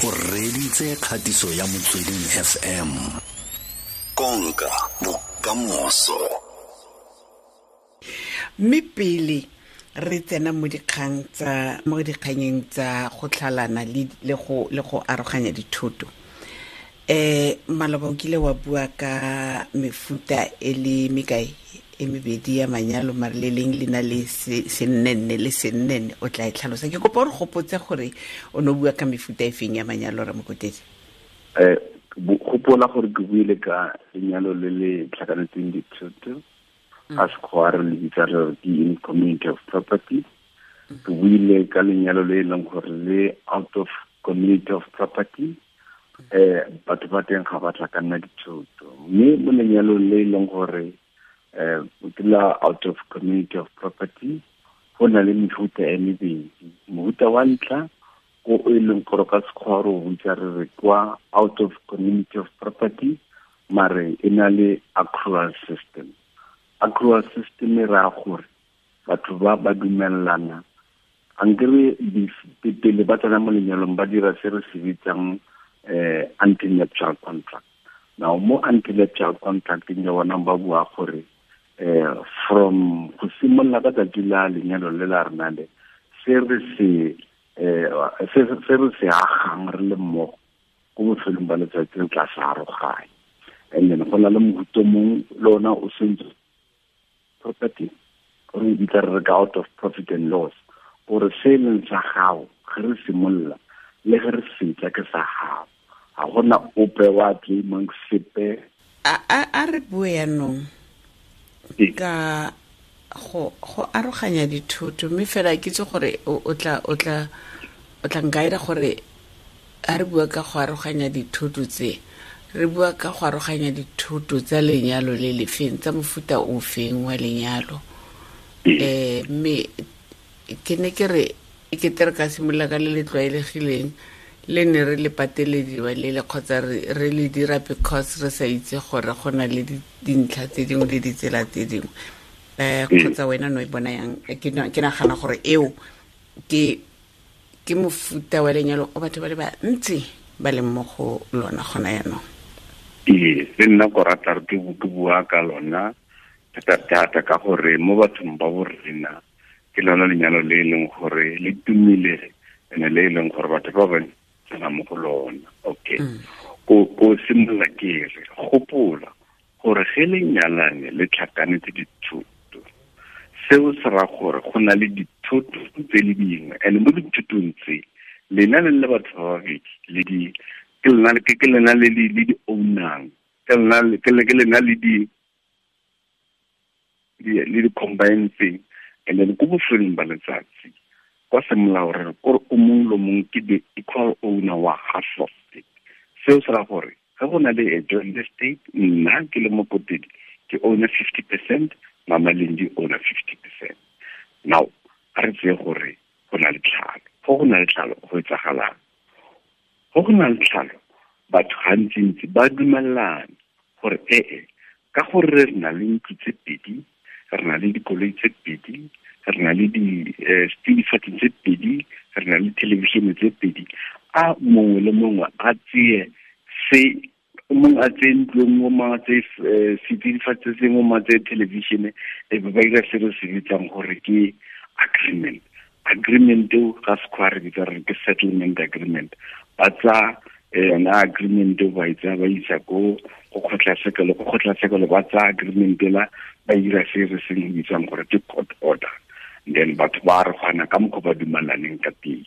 O reditse kgatiso ya Motsweding FM. Konka bokamoso. Mme pele re tsena mo dikgang tsa mo dikganyeng tsa go tlhalana le go aroganya dithoto, maloba o kile wa bua ka mefuta e le mekae? E mebedi ya manyalo, mare le leng le na le sennenne le sennenne. O tla e tlhalosa. Ke kopa gore gopotse gore o ne o bua ka mefuta e feng ya manyalo, Ramokotedi. Gopola gore ke buile ka lenyalo le le tlhakanetseng dithoto, ka sekgowa re le bitsa re re ke in community of property. Ke buile ka lenyalo le e leng gore le out of community of property, batho ba teng ga ba tlhakanna dithoto. Mme mo lenyalong le e leng gore ke la out of community of property, go na le mefuta e mebedi. Mofuta wa ntlha o e leng gore ka sekgowa re o bitsa re re kwa out of community of property, mare e na le accrual system. Accrual system e raya gore batho ba ba dumelana ankere pele ba tsena mo lenyalong, ba dira se re se bitsang antenuptial contract. Now, mo antenuptial contracting ya bona, ba bua gore from go simolola ka tsatsi la lenyalo le la rena le, se re se agang re le mmogo, ko bofelong ba letsatsi re tla se aroganya. And then go na le mofuta mongwe le ona o sentse property, re bitsa re re ka out of profit and loss, gore se e leng sa gago ge re simolola le ge re fetsa ke sa gago, ga gona ope wa claimang sepe. A re bue yanong ka go aroganya dithoto, mme fela ke itse gore o tla nkaira gore a re bua ka go aroganya dithoto tse, re bua ka go aroganya dithoto tsa lenyalo le lefeng, tsa mofuta o feng wa lenyalo? Mme ke ne ke re e kete re ka simolola ka le le tlwaelegileng le ne re le patelediwa le le kgotsa re le dira because re sa itse gore go na le dintlha tse dingwe le ditsela tse dingwe. Kgotsa wena no e bona yang? Ke nagana gore eo ke mofuta wa lenyalo o batho ba le bantsi ba leng mo go lona gona yaanong. Ee, le nna ko rata re ke bua ka lona thata-thata, ka gore mo bathong ba borena ke lona lenyalo le e leng gore le tumile ene le e leng gore batho ba bantsi tsena mo go lona. Okay, ko simolola ke re gopola gore ge le nyalane le tlhakanetse dithoto, seo se ra gore go na le dithoto tse le dingwe, and mo dithotong tse lena le le batho ba babedi le di ke lena ke lena le di ownang, ke lena le di combine thing. And then ko bofelong ba letsatsi, kwa semolao re re kore o mongwe le mongwe ke the equal owner wa half of it. Seo se ra gore ge go na le a joint estate, nna ke le Mokotedi ke owner 50%, Mama Lendi owner 50%. Now, a re tseye gore go na le tlhalo. Go na le tlhalo, go etsagalang? Go na le tlhalo, batho gantsintsi ba dumelana gore ee, ka gore re na le ntlo tse pedi, re na le dikoloi tse pedi, re na le di-setsidifatsi tse pedi, re na le television tse pedi, a mongwe le mongwe a tseye se, mongwe a tseye ntlo e nngwe, mongwe a tseye setsidifatsi se sengwe, mongwe a tseye television. E be ba dira se re se bitsang gore ke agreement. Agreement eo ga sekgwa re bitsa re ke settlement agreement. Ba tsa yona agreement eo, ba e tsaya, ba isa ko go kgotlatshekelo. Ko kgotlatshekelo ba tsaya agreement ela, ba dira se re se bitsang gore ke court order. Then batho ba arogana ka mokgwa ba dumalaneng ka teng.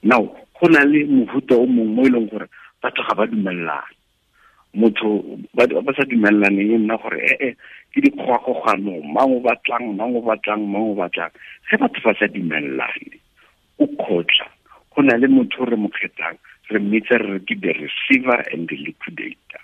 Now, go na le mofuta o mongwe mo e leng gore batho ga ba dumelelane. Motho ba sa dumelaneng e nna gore ee, ke dikgogakgogano, mang o batlang, mang o batlang, mang o batlang. Ge batho ba sa dumelelane o kgotla, go na le motho o re mo kgethang, re mmitsa re re ke the receiver and the liquidator.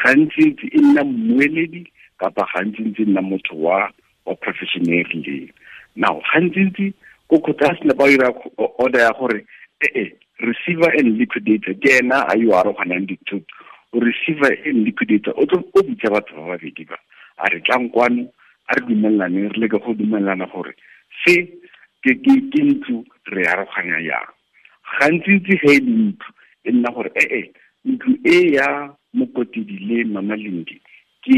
Gantsi-ntsi e nna mmueledi, kapa gantsi-ntsi e nna motho wa profession e rileng. Now, gantsi-ntsi ko kgotla a sena ba dira order ya gore ee, receiver and liquidator ke ena a yo aroganang dithoto. O receiver and liquidator o tlo o bitsa batho ba babedi ba, a re, "Tlang kwano, a re dumelaneng, re leke go dumelana gore se ke ntlo, re aroganya yang." Gantsi-ntsi ge e le ntlo E nna gore ee ntlo e ya Mokotedi le Mama Lindi ke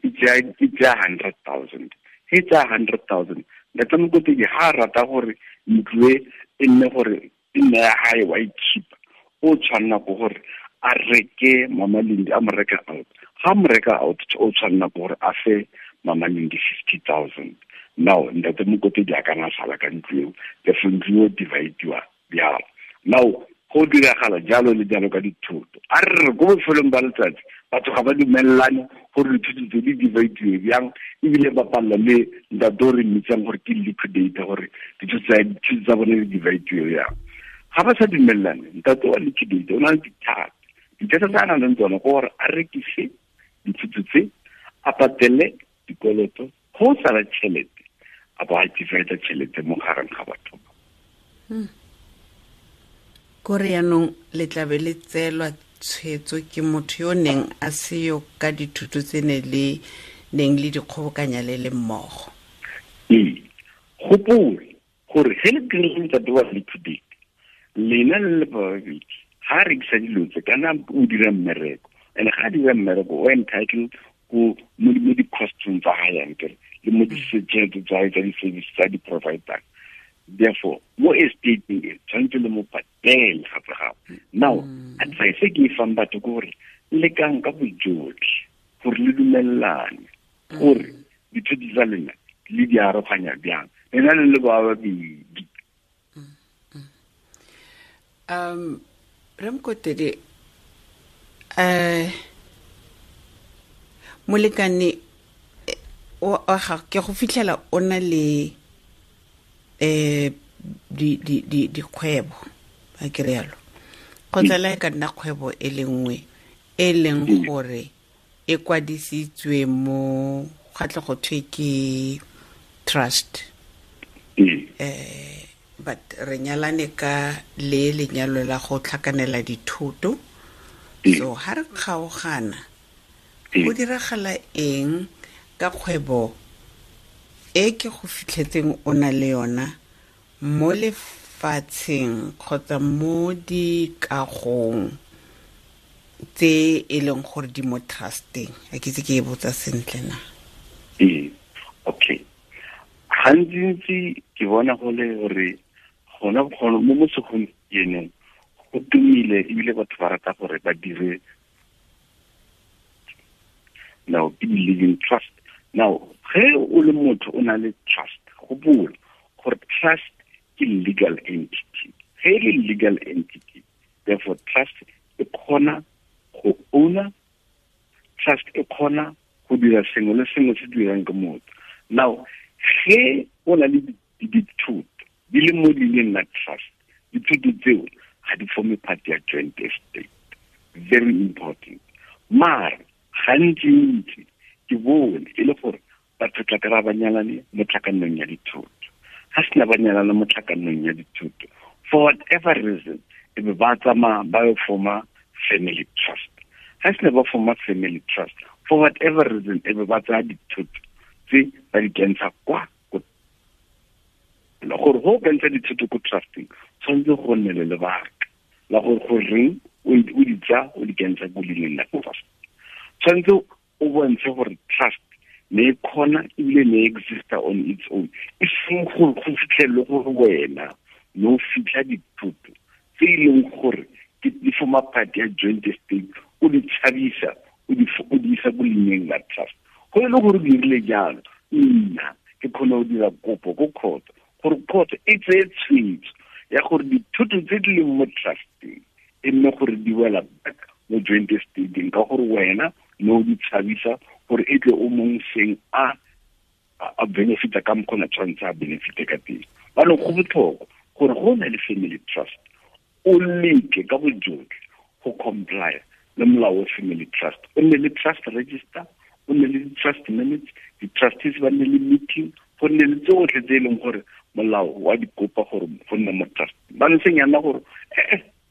e tsaya 100,000. He tsaya 100,000, ntate Mokotedi ha a rata gore ntlo e e nne gore e nne ya hae wa e keep-a, o tshwanela ke gore a reke Mama Lindi, a mo reka out. Ga mo reka out, o tshwanela ke gore a fe Mama Lindi 50,000. Now ntate Mokotedi a kana sala ka ntlo eo, therefore ntlo eo divide-iwa bjalo. Now go diragala jalo le jalo ka dithoto. A re re ko bofelong ba letsatsi batho ga ba dumelelane gore dithoto tse di divide-iwe bjang, ebile ba palela le ntate o re mmitsang gore ke liquidator gore dithoto tsa bone di divide-iwe bjang. Ga ba sa dumelelane, ntate wa liquidator o na le dithata. Dithata tse a nang le tsone ke gore a rekise dithoto tse, a patele dikoloto, go sala tšhelete, a bo a divide tšhelete mo gareng ga batho. Kore yaanong le tlabe le tseelwa tshwetso ke motho yo neng a seyo ka dithuto tse ne le neng le dikgobokanya le le mmogo. Ee, gopola gore ge le dirile ntate wa liquidate, lena le le babedi ga a rekisa dilo tse kana o dira mmereko, and ga a dira mmereko o entitled ko mo di-costong tsa gae ankere le mo ditšhelete tsa gae tsa di-service tsa di-providang. Therefore, mo estate-eng e tshwanetse le mo patele gape gape. Now, advice e ke e fang batho ke gore lekang ka bojotlhe gore le dumelelane gore dithoto tsa lena le di aroganya bjang, lena le le ba babedi. Rre Mokotedi, molekane wa gago ke go fitlhela o na le dikgwebo, a ke rialo, kgotsa le ka nna kgwebo e le nngwe e leng gore e kwadisitswe mo ga tle go thwe ke trust. But re nyalane ka le lenyalo la go tlhakanela dithoto. So ha re kgaogana, go diragala eng ka kgwebo e ke go fitlhetseng o na le yona mo lefatsheng kgotsa mo dikagong tse e leng gore di mo trusteng? A ke itse ke e botsa sentle na? Ee, okay. Gantsi ke bona go le gore gona mo segompienong go tumile ebile batho ba rata gore ba dire now ke living trust. Now ge o le motho o na le trust, gopola gore trust ke legal entity. Ge e le legal entity, therefore trust e kgona go owner, trust e kgona go dira sengwe le sengwe se dirang ke motho. Now ge o na le dithoto di le mo leineng la trust, dithoto tseo ga di forme part ya joint estate. Very important. Mara gantsi-ntsi ke bone e le gore batho tla kry-a ba nyalane mo tlhakanong ya dithoto. Ga sena ba nyalane mo tlhakanong ya dithoto, for whatever reason, e be ba tsamaya ba yo forma family trust. Ga sena ba forma family trust, for whatever reason, e be ba tsaya dithoto tse ba di kentsha kwa gore go kentsha dithoto ko trusting, tshwanetse go nne le lebaka la gore goreng o di tsaya o di kentsha ko leineng la trust. Tshwanetse o bontshe gore trust ne e kgona ebile ne e exista on its own, e seng gore go fitlhelele gore wena ne o fitlha dithoto tse e leng gore ke di forma part ya joint estate, o di tshabisa o di isa ko leineng la trust. Go e le gore o dirile jalo, nna ke kgone go dira kopo ko court gore court e tseye tshwetso ya gore dithoto tse di leng mo trusteng e nne gore di wela back mo joint estate-eng, ka gore wena ne o di tshabisa gore e tle o mong seng a benefita ka mokgona tshwanetse a benefite ka teng. Banong go botlhokwa gore go na le family trust, o leke ka bojotlhe go comply le molao wa family trust. O nne le trust register, o nne le trust minutes, di-trustees ba nne le meeting, go nne le tsotlhe tse e leng gore molao wa di kopa gore go nne mo trust. Ba seng yana gore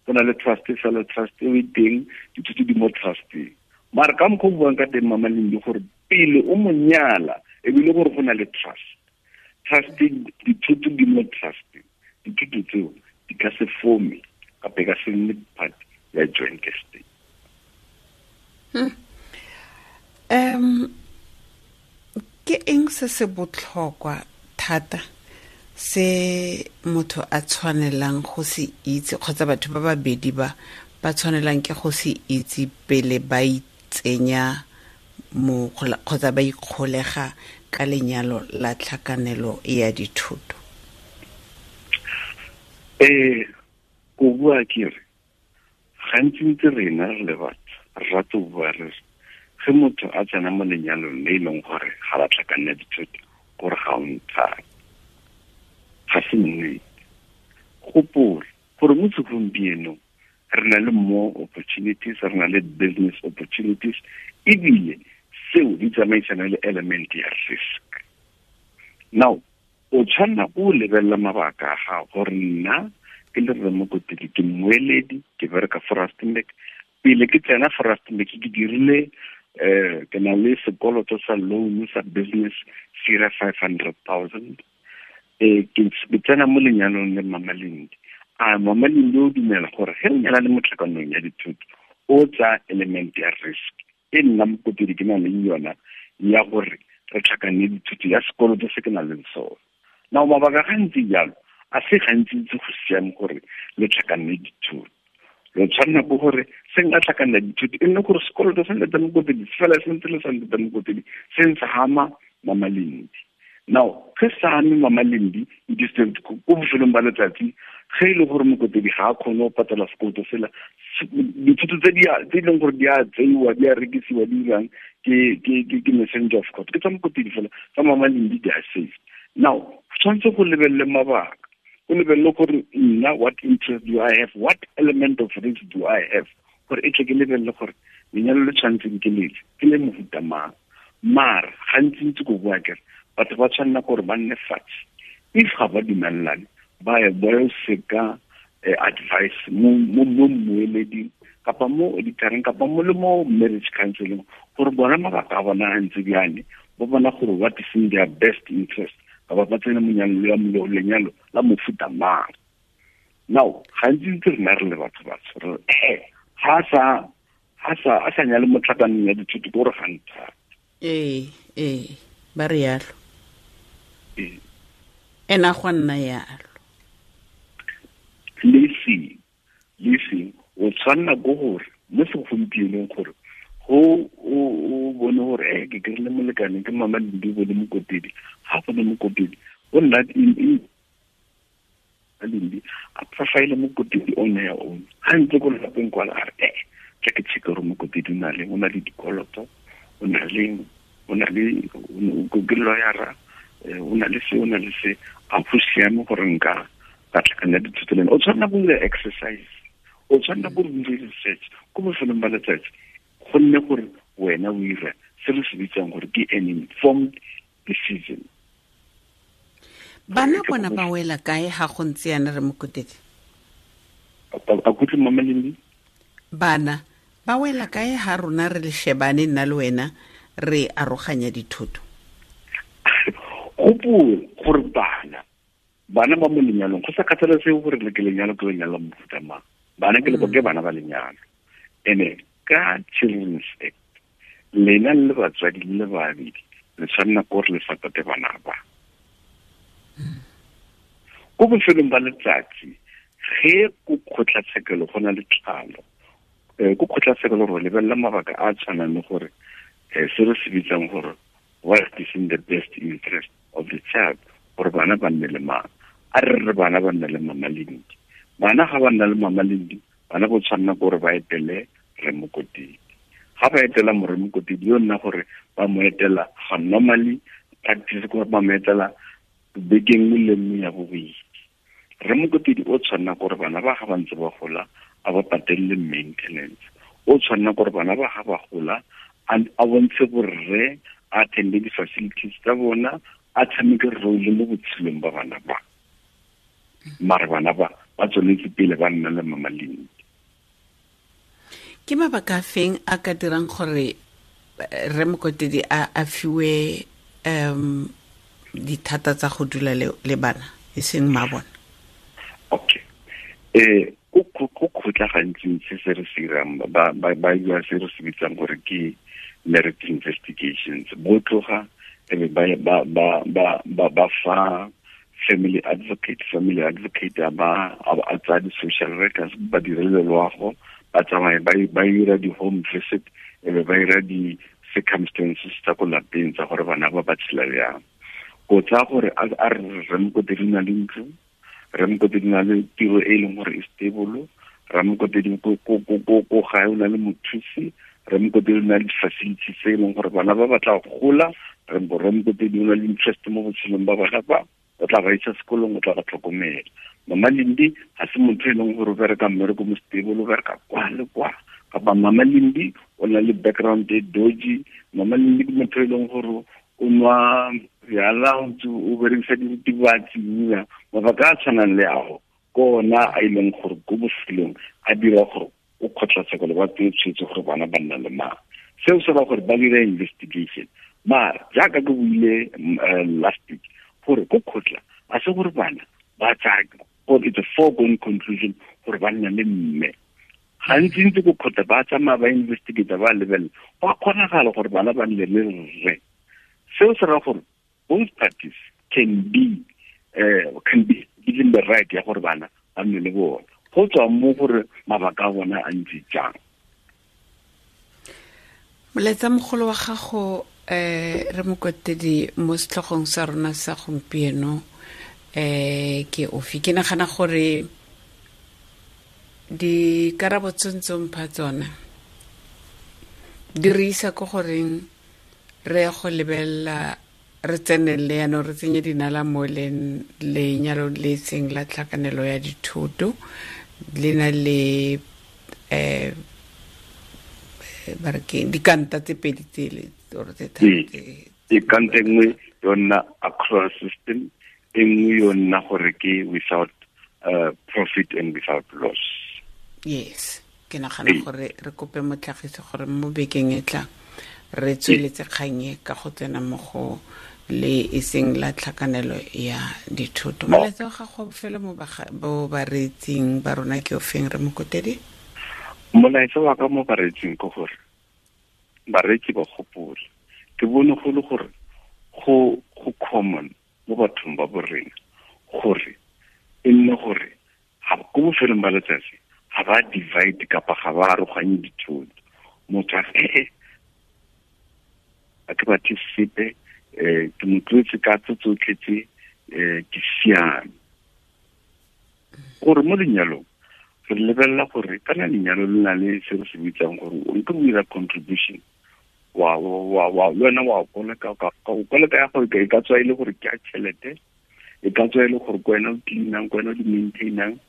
go na le trust fela, trust e teng, dithoto di mo trusteng. Mara ka mokgwa o buang ka teng Mama Lindi, gore pele o mo nyala ebile gore go na le trust, trust dithoto di mo trusteng, dithoto tseo di ka se forme kapa e ka se nne part ya se se botlhokwa thata se motho a tshwanelang go se itse kgotsa batho ba babedi ba ba tshwanelang ke go se itse pele ba itsenya mo kgotsa ba ikgolega ka lenyalo la tlhakanelo ya dithoto? Ko bua ke re gantsi ntse rena re le batho re rata go bua re ge motho a tsena mo lenyalong le e leng gore ga ba tlhakanela dithoto gore ga o nthate, ga se nnete. Gopola gore mo segompienong re na le more opportunities, re na le business opportunities, ebile seo di tsamaisana le element ya risk. Now o tshwanela o lebelela mabaka a gago gore nna ke le Rre Mokotedi ke mmueledi, ke bereka for Rustenburg. Pele ke tsena for Rustenburg ke dirile ke na le sekoloto sa loan sa business sira 500,000. Ke tsena mo lenyalong le Mama Lindi. A Mama Lindi o dumela gore ge o nyala le mo tlhakanong ya dithoto o tsa element ya risk e nna Mokotedi ke na leng yona ya gore re tlhakanne dithoto ya sekoloto se ke nang le sone. Now mabaka gantsi jalo a se gantsi ntse go siame gore le tlhakanne dithoto. Lo tshwanela ke gore se nka tlhakanela dithoto e nne gore sekoloto sa Ntate Mokotedi se fela se ntse le sa Ntate Mokotedi se ntse hama Mama Lindi. Now ge sa ame Mama Lindi it is ko bofelong ba letsatsi ge e le gore Mokotedi ga a kgone go patela sekoloto sela, dithoto tse e leng gore di a tseiwa di a rekisiwa di dirang ke messenger of court ke tsa Mokotedi fela, tsa Mama Lindi di a safe. Now tshwanetse go lebelele mabaka, o lebelele gore nna what interest do I have, what element of risk do I have, gore e tle ke lebelele gore lenyalo le tshwanetseng ke lefe, ke le mofuta mang. Mara gantsi ntse ko bua kere batho ba tshwanela gore ba nne fatshe, if ga ba dumelelane ba ye ba yo seka advice mo mmueleding kapa mo auditoreng kapa mo le mo marriage counseling gore bona mabaka a bona a ntse bjane, ba bona gore what is in their best interest, kapa ba tsene monyalo lenyalo la mofuta mang. Now gantsi ntse rena re le batho batsho re ga a sa nyale mo tlhakanong ya dithoto ke gore ga nthate. Ee ba re yalo. Ena go nna yalo. Le seng o tshwanela ke gore mo segompienong gore go o bone gore ke kry-ile molekane ke Mama Lindi o bone Mokotedi, ga bone Mokotedi o nna Lindi a profile Mokotedi on her own. Ga ntse ko lelapeng kwala a re tla ke check gore Mokotedi o na le dikoloto, o na le ke lawyer, o na le se, o na le se, a go siame gore nka ka tlhakanela dithoto le ena. O tshwanela go dira exercise, o tshwanela go dira research ko bofelong ba letsatsi, gonne gore wena o ira se re se bitsang gore ke an informed decision. Bana bona ba wela kae ga go ntse yana Rre Mokotedi? A kutlwe Mama Lindi? Bana ba wela kae ga rona re le shebane nna le wena re aroganya dithoto? Gopola gore bana ba mo lenyalong go sa kgathalesege gore le ke lenyalo ke lenyalo la mofuta mang, bana ke ke bana ba lenyalo. Ene ka Children's Act lena le batswadi le babedi le tshwanela ke gore le supporte bana ba. Ko bofelong ba letsatsi ge ko kgotlatshekelo go na le tlhalo, ko kgotlatshekelo gore lebelela mabaka a tshwanang le gore se re se bitsang gore what is in the best interest of the child, gore bana ba nne le mang. A re re bana ba nne le Mama Lindi, bana ga ba nna le Mama Lindi bana bo tshwanela gore ba etele Rre Mokotedi. Ga ba etela Rre Mokotedi yo nna gore ba mo etela ga normally practice gore ba mo etela beke nngwe le nngwe ya bobedi. Rre Mokotedi o tshwanela gore bana ba ga ba ntse ba gola a ba patelele maintenance, o tshwanela gore bana ba ga ba gola a bontshe borre, a attende di-facilities tsa bona, a tshameke role mo botshelong ba bana ba. Mare bana ba ba tsweletse pele ba nna le Mama Lindi. Ke mabaka a feng a ka dirang gore Rre Mokotedi a fiwe dithata tsa go dula le bana e seng mma bona? Okay. Ko kgotla gantsi se se re se irang ba bua se re se bitsang gore ke merit investigations. Bo tloga Ebe ba fa family advocate, family advocate a ba a tsaya di-social workers, ba direle loago, ba tsamaye ba ira di-home visit, ebe ba ira di-circumstances tsa ko lapeng tsa gore bana ba ba tshela bjang. Ko tsaya gore a re Ramokotedi na le ntlo, Ramokotedi na le tiro e leng gore e stable, Ramokotedi ko gae o na le mothusi, Ramokotedi o na le di-facilities tse e leng gore bana ba batla go gola, Ramokotedi o na le interest mo botshelong ba bana ba, o tla ba isa sekolong, o tla ba tlhokomela. Mama Lindi ga se motho e leng gore o bereka mmereko mo stable, o bereka kwa le kwa, kapa Mama Lindi o na le background e dodgy, Mama Lindi ke motho e leng gore o nwa bjala, o berekisa diritibatsi, mabaka a tshwanang le ao ke ona a e leng gore ko bofelong a dira gore o kgotlatshekelo ba tseye tshwetso gore bana ba nna le mang. Seo se ba gore ba dira investigation. Mara jaaka ke buile last week gore ko kgotla a se gore bana ba tsaya, or it's a foregone conclusion gore ba nna le mme. Gantsi ntse ko kgotla ba tsamaya ba investigate, ba lebelela, go a kgonagala gore bana ba nne le rre. Seo se raya gore both parties can be given the right ya gore bana ba nne le bona, go tswa mo gore mabaka a bona a ntse jang. Molaetsa mogolo wa gago re Mokotedi mo setlhogong sa rona sa gompieno ke ofe? Ke nagana gore dikarabo tse ntse mpha tsona di re isa ko goreng re ya go lebelela, re tsenelele yaanong, re tsenye dinala mo lenyalo le seng la tlhakanelo ya dithoto, le na le ba re ke dikanta tse pedi tsele or tse tharo tse. Dikanta e nngwe yona accrual system, e nngwe yona gore ke without profit and without loss. Yes, ke nagana gore re kope motlhagisi gore mo bekeng e tlang re tsweletse kgang e ka go tsena mo go le e seng la tlhakanelo ya dithoto. Molaetsa wa gago fela mo bo bareetsing ba rona ke ofeng, re Mokotedi? Molaetsa wa ka mo bareetsing ke gore bareetsi ba gopole, ke bone go le gore go common mo bathong ba borena gore e nne gore ga ko bofelong ba letsatsi ga ba divide kapa ga ba aroganye dithoto. Motho a re a ke batle sepe, ke mo tlotse ka tse tsotlhe tse, ke siame. Gore mo lenyalong re lebelela gore kana lenyalo le na le se re se bitsang gore o nke o dira contribution, wa le wena wa koleka, o koleka ya gore e ka tswa e le gore ke a tšhelete, e ka tswa e le gore ke wena o cleanang, ke wena o di maintainang.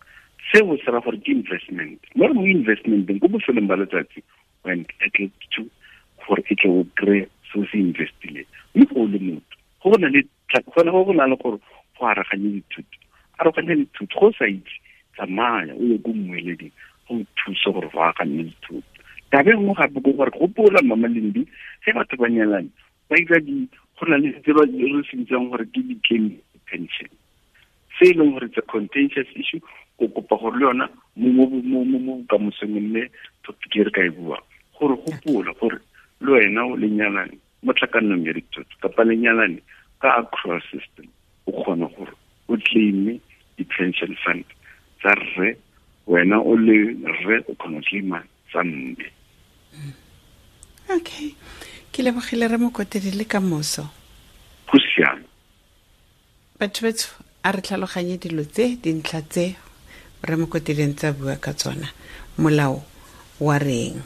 Seo se ra gore ke investment. Mo re mo investmenteng ko bofelong ba letsatsi o entitled to gore e tle o kry-e se o se investileng. Mme go le motho go na le go na le gore go aroganye dithuto, aroganye dithuto, go sa itse tsamaya o ye ko mmueleding go thuse gore go aroganye dithuto. Taba e nngwe gape ke gore gopola Mama Lindi, ge batho ba nyalane ba ira di, go na le tse ba re se bitsang gore ke di-claim pension, se e leng gore it's a contentious issue. Ko kopa gore le yona mo bokamosong mme topic e re ka e buang, gore gopola gore le wena o lenyalane mo tlhakanong ya dithoto kapa lenyalane ka accrual system, o kgona gore o claime di-pension fund tsa rre, wena o le rre o kgona go claima tsa mme. Okay, ke lebogile re Mokotedi le ka moso. Go siame. Batho betsho, a re tlhaloganye dilo tse, dintlha tse re Mokotedi ntse a bua ka tsona. Molao wa reng?